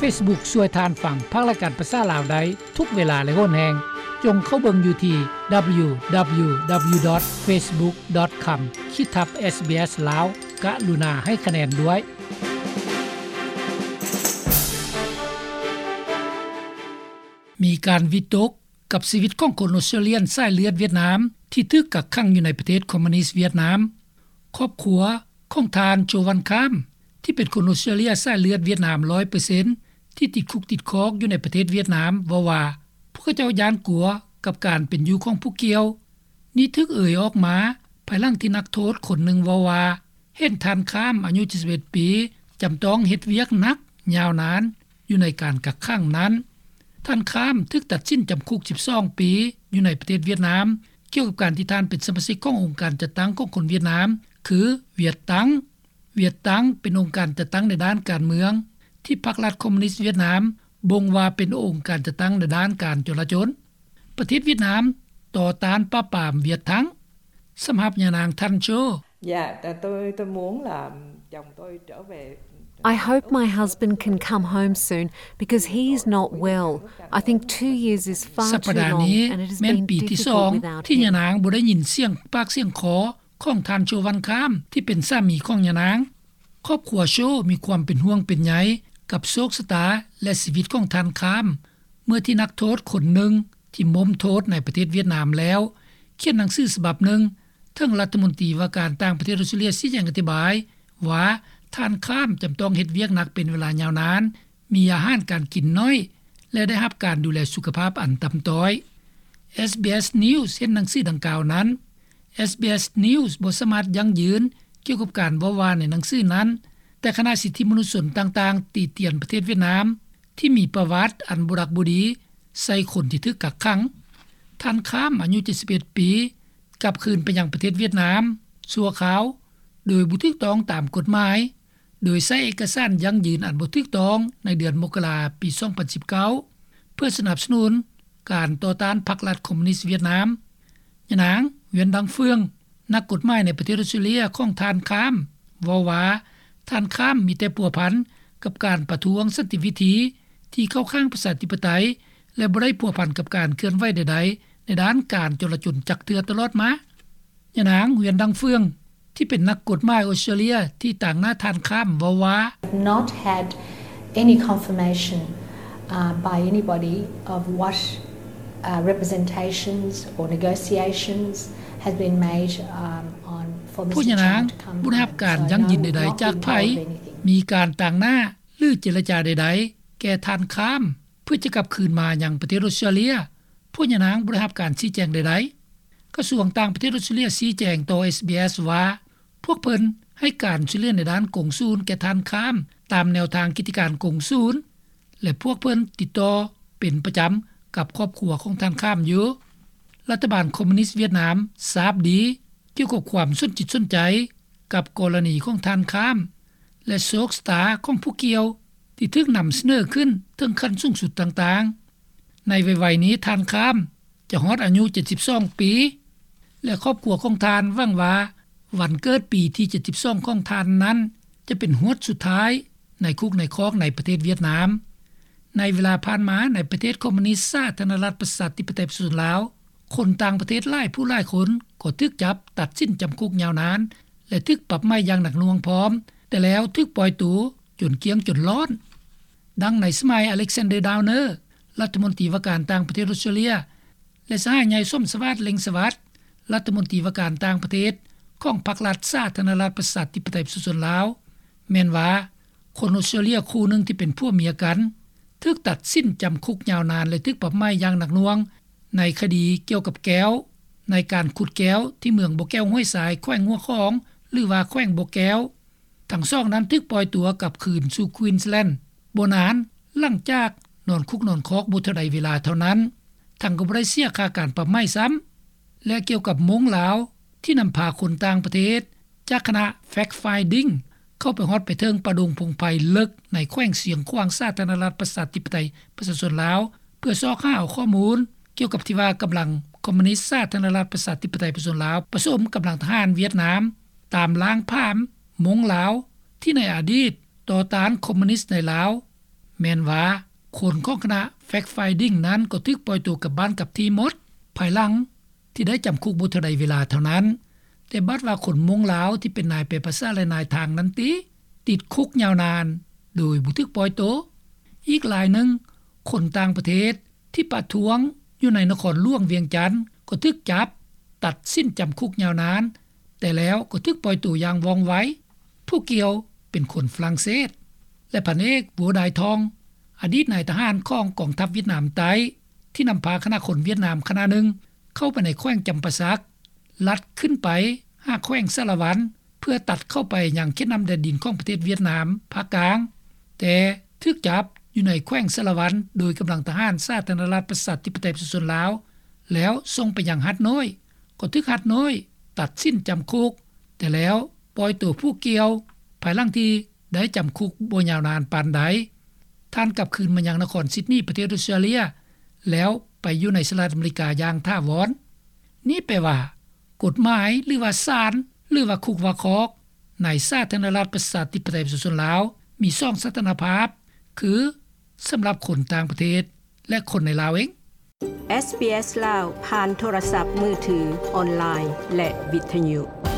ເຟສບຸກ ຊ່ວຍທ່ານຟັງພັກລາຍການພາສາລາວໄດ້ທຸກເວລາ ແລະ ໂຫນແຮງ. ຈົ່ງເຂົ້າເບິ່ງຢູ່ທີ່ www.facebook.com/ SBS ລາວ. ກະລຸນາໃຫ້ຄະແນນດ້ວຍ. ມີການວິຕົກກັບຊີວິດຂອງຄົນອົດສະຕຣາເລຍນສາຍເລືອດຫວຽດນາມ ທີ່ຖືກກັກຂັງຢູ່ໃນປະເທດຄອມມູນິດຫວຽດນາມ. ຄອບຄົວຂອງທ່ານ ໂຈ ວັນຄາມ ທີ່ເປັນຄົນອົດສະຕຣາເລຍສາຍເລືອດຫວຽດນາມ ຮ້ອຍເປີເຊັນ ທີ່ຕິດຄຸກຕິດຄອກຢູ່ໃນປະເທດຫວຽດນາມ ເວົ້າວ່າ ພວກເຂົາເຈົ້າຢ້ານກົວກັບການເປັນຢູ່ຂອງຜູ້ກ່ຽວ. ນີ້ຖືກເອີ່ຍອອກມາ ພາຍຫຼັງທີ່ນັກໂທດຄົນໜຶ່ງເວົ້າວ່າ ເຫັນທ່ານຄາມ ອາຍຸເຈັດສິບເອັດປີ ຈຳຕ້ອງເຮັດວຽກໜັກຍາວນານຢູ່ໃນການກັກຂັງນັ້ນ. ທ່ານຄາມຖືກຕັດສິນຈຳຄຸກສິບສອງປີ ຢູ່ໃນປະເທດຫວຽດນາມ ກ່ຽວກັບການທີ່ທ່ານເປັນສະມາຊິກຂອງອົງການຈັດຕັ້ງຂອງຄົນຫວຽດນາມ ຄື ຫວຽດຕັງ. ຫວຽດຕັງ ເປັນອົງການຈັດຕັ້ງໃນດ້ານການເມືອງ ທີ່ພັກລັດຄອມມູນິດຫວຽດນາມບົ່ງວ່າເປັນອົງການຈັດຕັ້ງໃນດ້ານການຈົນລະຈົນ. ປະເທດຫວຽດນາມຕໍ່ຕ້ານປາບປາມຫວຽດທັງ. ສຳລັບຍານາງ ທ່ານ ໂຈ Dạ, tôi tôi muốn là chồng tôi trở về. I hope my husband can come home soon because he is not well. I think two years is far too long and it has been difficult without him. ສັບປະດານີ້ແມ່ນປີທີສອງທີ່ຍານາງບໍ່ໄດ້ຍິນສຽງປາກສຽງຄໍຂອງທ່ານ ໂຈ ວັນຄາມ ທີ່ເປັນສາມີຂອງຍານາງ. ຄອບຄົວ ໂຈ ມີຄວາມເປັນຫ່ວງເປັນໃຍກັບໂຊກຊະຕາ ແລະ ຊີວິດຂອງທ່ານຄາມ ເມື່ອທີ່ນັກໂທດຄົນໜຶ່ງທີ່ມົ້ມໂທດໃນປະເທດຫວຽດນາມແລ້ວ ຂຽນໜັງສືສະບັບໜຶ່ງເຖິງລັດຖະມົນຕີວ່າການຕ່າງປະເທດອົດສະຕຣາເລຍ ຊີ້ແຈງອະທິບາຍວ່າ ທ່ານຄາມຈຳຕ້ອງເຮັດວຽກໜັກເປັນເວລາຍາວນານ, ມີອາຫານການກິນໜ້ອຍ ແລະ ໄດ້ຮັບການດູແລສຸຂະພາບອັນຕ່ຳຕ້ອຍ. SBS News ເຫັນໜັງສືດັ່ງກ່າວນັ້ນ. SBS News ບໍ່ສາມາດຢັ້ງຢືນກ່ຽວກັບການເວົ້າວ່າໃນໜັງສືນັ້ນ, ແຕ່ຄະນະສິດທິມະນຸດຊົນຕ່າງໆ ຕິຕຽນປະເທດຫວຽດນາມ ທີ່ມີປະຫວັດອັນບໍ່ດັກບໍ່ດີໃສ່ຄົນທີ່ຖືກກັກຂັງ. ທ່ານຄາມ ອາຍຸເຈັດສິບເອັດປີ ກັບຄືນໄປຍັງປະເທດຫວຽດນາມຊົ່ວຄາວ ໂດຍບໍ່ຖືກຕ້ອງຕາມກົດໝາຍ, ໂດຍໃຊ້ເອກະສານຢັ້ງຢືນອັນບໍ່ຖືກຕ້ອງໃນເດືອນມົກກະລາ ປີສອງພັນສິບເກົ້າ ເພື່ອສະໜັບສະໜູນການຕໍ່ຕ້ານພັກລັດຄອມມູນິດຫວຽດນາມ. ຍານາງ ຫວຽນ ດັງເຟືອງ ນັກກົດໝາຍໃນປະເທດອົດສະຕຣາເລຍຂອງທ່ານຄາມ ເວົ້າວ່າ ທ່ານຄາມມີແຕ່ພົວພັນກັບການປະທ້ວງສັນຕິວິທີທີ່ເຂົ້າຂ້າງປະຊາທິປະໄຕ ແລະ ບໍ່ໄດ້ພົວພັນກັບການເຄື່ອນໄຫວໃດໆໃນດ້ານການຈົນລະຈົນຈັກເທື່ອຕະຫຼອດມາ. ຍານາງ ຫວຽນ ດັງເຟືອງ ທີ່ເປັນນັກກົດໝາຍອົດສະຕຣາເລຍທີ່ຕາງໜ້າທ່ານຄາມ ເວົ້າວ່າ Not had any confirmation, uh, by anybody of what, uh, representations or negotiations has been made, um, on for Mister Chung to come home. ພວກຍານາງບໍ່ໄດ້ຮັບການຢັ້ງຢືນໃດໆຈາກໃຜ, ມີການຕາງໜ້າ ຫຼື ເຈລະຈາໃດໆແກ່ທ່ານຄາມ ເພື່ອຈະກັບຄືນມາຍັງປະເທດອົດສະຕຣາເລຍ. ພວກຍານາງບໍ່ໄດ້ຮັບການຊີ້ແຈງໃດໆ. ກະຊວງຕ່າງປະເທດອົດສະຕຣາເລຍຊີ້ແຈງຕໍ່ SBS ວ່າ ພວກເພິ່ນໃຫ້ການຊ່ວຍເຫຼືອໃນດ້ານກົງສູນແກ່ທ່ານຄາມ ຕາມແນວທາງກິດຈະການກົງສູນ ແລະ ພວກເພິ່ນຕິດຕໍ່ເປັນປະຈຳກັບຄອບຄົວຂອງທ່ານຄາມຢູ່. ລັດຖະບານຄອມມູນິດຫວຽດນາມຊາບດີກ່ຽວກັບຄວາມສົນຈິດສົນໃຈກັບກໍລະນີຂອງທ່ານຄາມ ແລະ ໂຊກຊະຕາຂອງຜູ້ກ່ຽວທີ່ຖືກນຳສະເໜີຂຶ້ນເຖິງຂັ້ນສູງສຸດຕ່າງໆ. ໃນໄວໆນີ້ທ່ານຄາມຈະຮອດອາຍຸເຈັດສິບສອງປີ ແລະ ຄອບຄົວຂອງທ່ານຫວັງວ່າວັນເກີດປີທີເຈັດສິບສອງຂອງທ່ານນັ້ນ ຈະເປັນຫວດສຸດທ້າຍໃນຄຸກໃນຄອກໃນປະເທດຫວຽດນາມ. ໃນເວລາຜ່ານມາໃນປະເທດຄອມມູນິດສາທາລະນະລັດປະຊາທິປະໄຕປະຊາຊົນລາວ, ຄົນຕ່າງປະເທດຫຼາຍຜູ້ຫຼາຍຄົນກໍຖືກຈັບ, ຕັດສິນຈຳຄຸກຍາວນານ ແລະ ຖືກປັບໃໝຢ່າງໜັກໜ່ວງພ້ອມ, ແຕ່ແລ້ວຖືກປ່ອຍໂຕຈົນກ້ຽງຈົນລ້ອນ. ດັ່ງໃນສະໄໝ ອາເລັກຊານເດີ ດາວເນີ ລັດຖະມົນຕີວ່າການຕ່າງປະເທດອົດສະຕຣາເລຍ ແລະ ສະຫາຍໃຫຍ່ ສົມສະຫວາດ ເລັ່ງສະຫວັດ ລັດຖະມົນຕີວ່າການຕ່າງປະເທດຂອງພັກລັດສາທາລະນະລັດປະຊາທິປະໄຕປະຊາຊົນລາວ ແມ່ນວ່າ ຄົນອົດສະຕຣາເລຍຄູ່ໜຶ່ງທີ່ເປັນຜົວເມຍກັນ ຖືກຕັດສິນຈຳຄຸກຍາວນານ ແລະ ຖືກປັບໃໝຢ່າງໜັກໜ່ວງ ໃນຄະດີກ່ຽວກັບແກ້ວ ໃນການຂຸດແກ້ວທີ່ເມືອງບໍ່ແກ້ວຫ້ວຍຊາຍ ແຂວງຫົວຂອງ ຫຼືວ່າແຂວງບໍ່ແກ້ວ. ທັງສອງນັ້ນຖືກປ່ອຍຕົວກັບຄືນສູ່ Queensland ບໍ່ນານຫຼັງຈາກນອນຄຸກນອນຄອກບໍ່ເທົ່າໃດເວລາເທົ່ານັ້ນ, ທັງກໍບໍ່ໄດ້ເສຍຄ່າການປັບໃໝຊ້ຳ. ແລະ ກ່ຽວກັບມົ້ງລາວທີ່ນຳພາຄົນຕ່າງປະເທດຈາກຄະນະ Fact Finding ເຂົ້າໄປຮອດໄປເຖິງປ່າດົງພົງໄພເລິກໃນແຂວງຊຽງຂວາງ ສາທາລະນະລັດປະຊາທິປະໄຕປະຊາຊົນລາວ ເພື່ອຊອກຫາເອົາຂໍ້ມູນກ່ຽວກັບທີ່ວ່າກຳລັງຄອມມູນິດສາທາລະນະລັດປະຊາທິປະໄຕປະຊາຊົນລາວ ປະສົມກຳລັງທະຫານຫວຽດນາມ ຕາມລ້າງຜາມມົ້ງລາວ ທີ່ໃນອະດີດຕໍ່ຕ້ານຄອມມູນິດໃນລາວ ແມ່ນວ່າຄົນຂອງຄະນະ Fact Finding ນັ້ນກໍຖືກປ່ອຍໂຕກັບບ້ານກັບທີ່ໝົດ ພາຍຫຼັງທີ່ໄດ້ຈຳຄຸກບໍ່ເທົ່າໃດເວລາເທົ່ານັ້ນ. ແຕ່ບາດວ່າຄົນມົ້ງລາວທີ່ເປັນນາຍແປພາສາ ແລະ ນາຍທາງນັ້ນຕິ ຕິດຄຸກຍາວນານໂດຍບໍ່ຖືກປ່ອຍໂຕ. ອີກລາຍໜຶ່ງ ຄົນຕ່າງປະເທດທີ່ປະທ້ວງຢູ່ໃນນະຄອນຫຼວງວຽງຈັນ ກໍຖືກຈັບ ຕັດສິນຈຳຄຸກຍາວນານ ແຕ່ແລ້ວກໍຖືກປ່ອຍໂຕຢ່າງວ່ອງໄວ. ຜູ້ກ່ຽວເປັນຄົນຝຣັ່ງເສດ ແລະ ພັນເອກ Wu Dai Thong ອະດີດນາຍທະຫານຂອງກອງທັບຫວຽດນາມໃຕ້ ທີ່ນຳພາຄະນະຄົນຫວຽດນາມຄະນະໜຶ່ງເຂົ້າໄປໃນແຂວງຈຳປາສັກ ລັດຂຶ້ນໄປຫາແຂວງສາລະວັນ ເພື່ອຕັດເຂົ້າໄປຍັງເຂດນ້ຳແດນດິນຂອງປະເທດຫວຽດນາມພາກກາງ, ແຕ່ຖືກຈັບຢູ່ໃນແຂວງສາລະວັນໂດຍກຳລັງທະຫານສາທາລະນະລັດປະຊາທິປະໄຕປະຊາຊົນລາວ ແລ້ວສົ່ງໄປຍັງຫາດນ້ອຍ ກໍຖືກຫາດນ້ອຍຕັດສິນຈຳຄຸກ ແຕ່ແລ້ວປ່ອຍໂຕຜູ້ກ່ຽວ ພາຍຫຼັງທີ່ໄດ້ຈຳຄຸກບໍ່ຍາວນານປານໃດ. ທ່ານກັບຄືນມາຍັງນະຄອນຊິດນີ ປະເທດອອສເຕຣເລັຍ ແລ້ວໄປຢູ່ໃນສະຫະລັດອາເມລິກາຢ່າງຖາວອນ. ນີ້ແປວ່າ ກົດໝາຍ ຫຼືວ່າສານ ຫຼືວ່າຄຸກວ່າຄອກ ໃນສາທາລະນະລັດປະຊາທິປະໄຕປະຊາຊົນລາວ ມີສອງສະຖານະພາບ ຄື ສຳລັບຄົນຕ່າງປະເທດ ແລະ ຄົນໃນລາວເອງ. ເອສບີເອສລາວ ຜ່ານໂທລະສັບມືຖື, ອອນລາຍ ແລະ ວິທະຍຸ.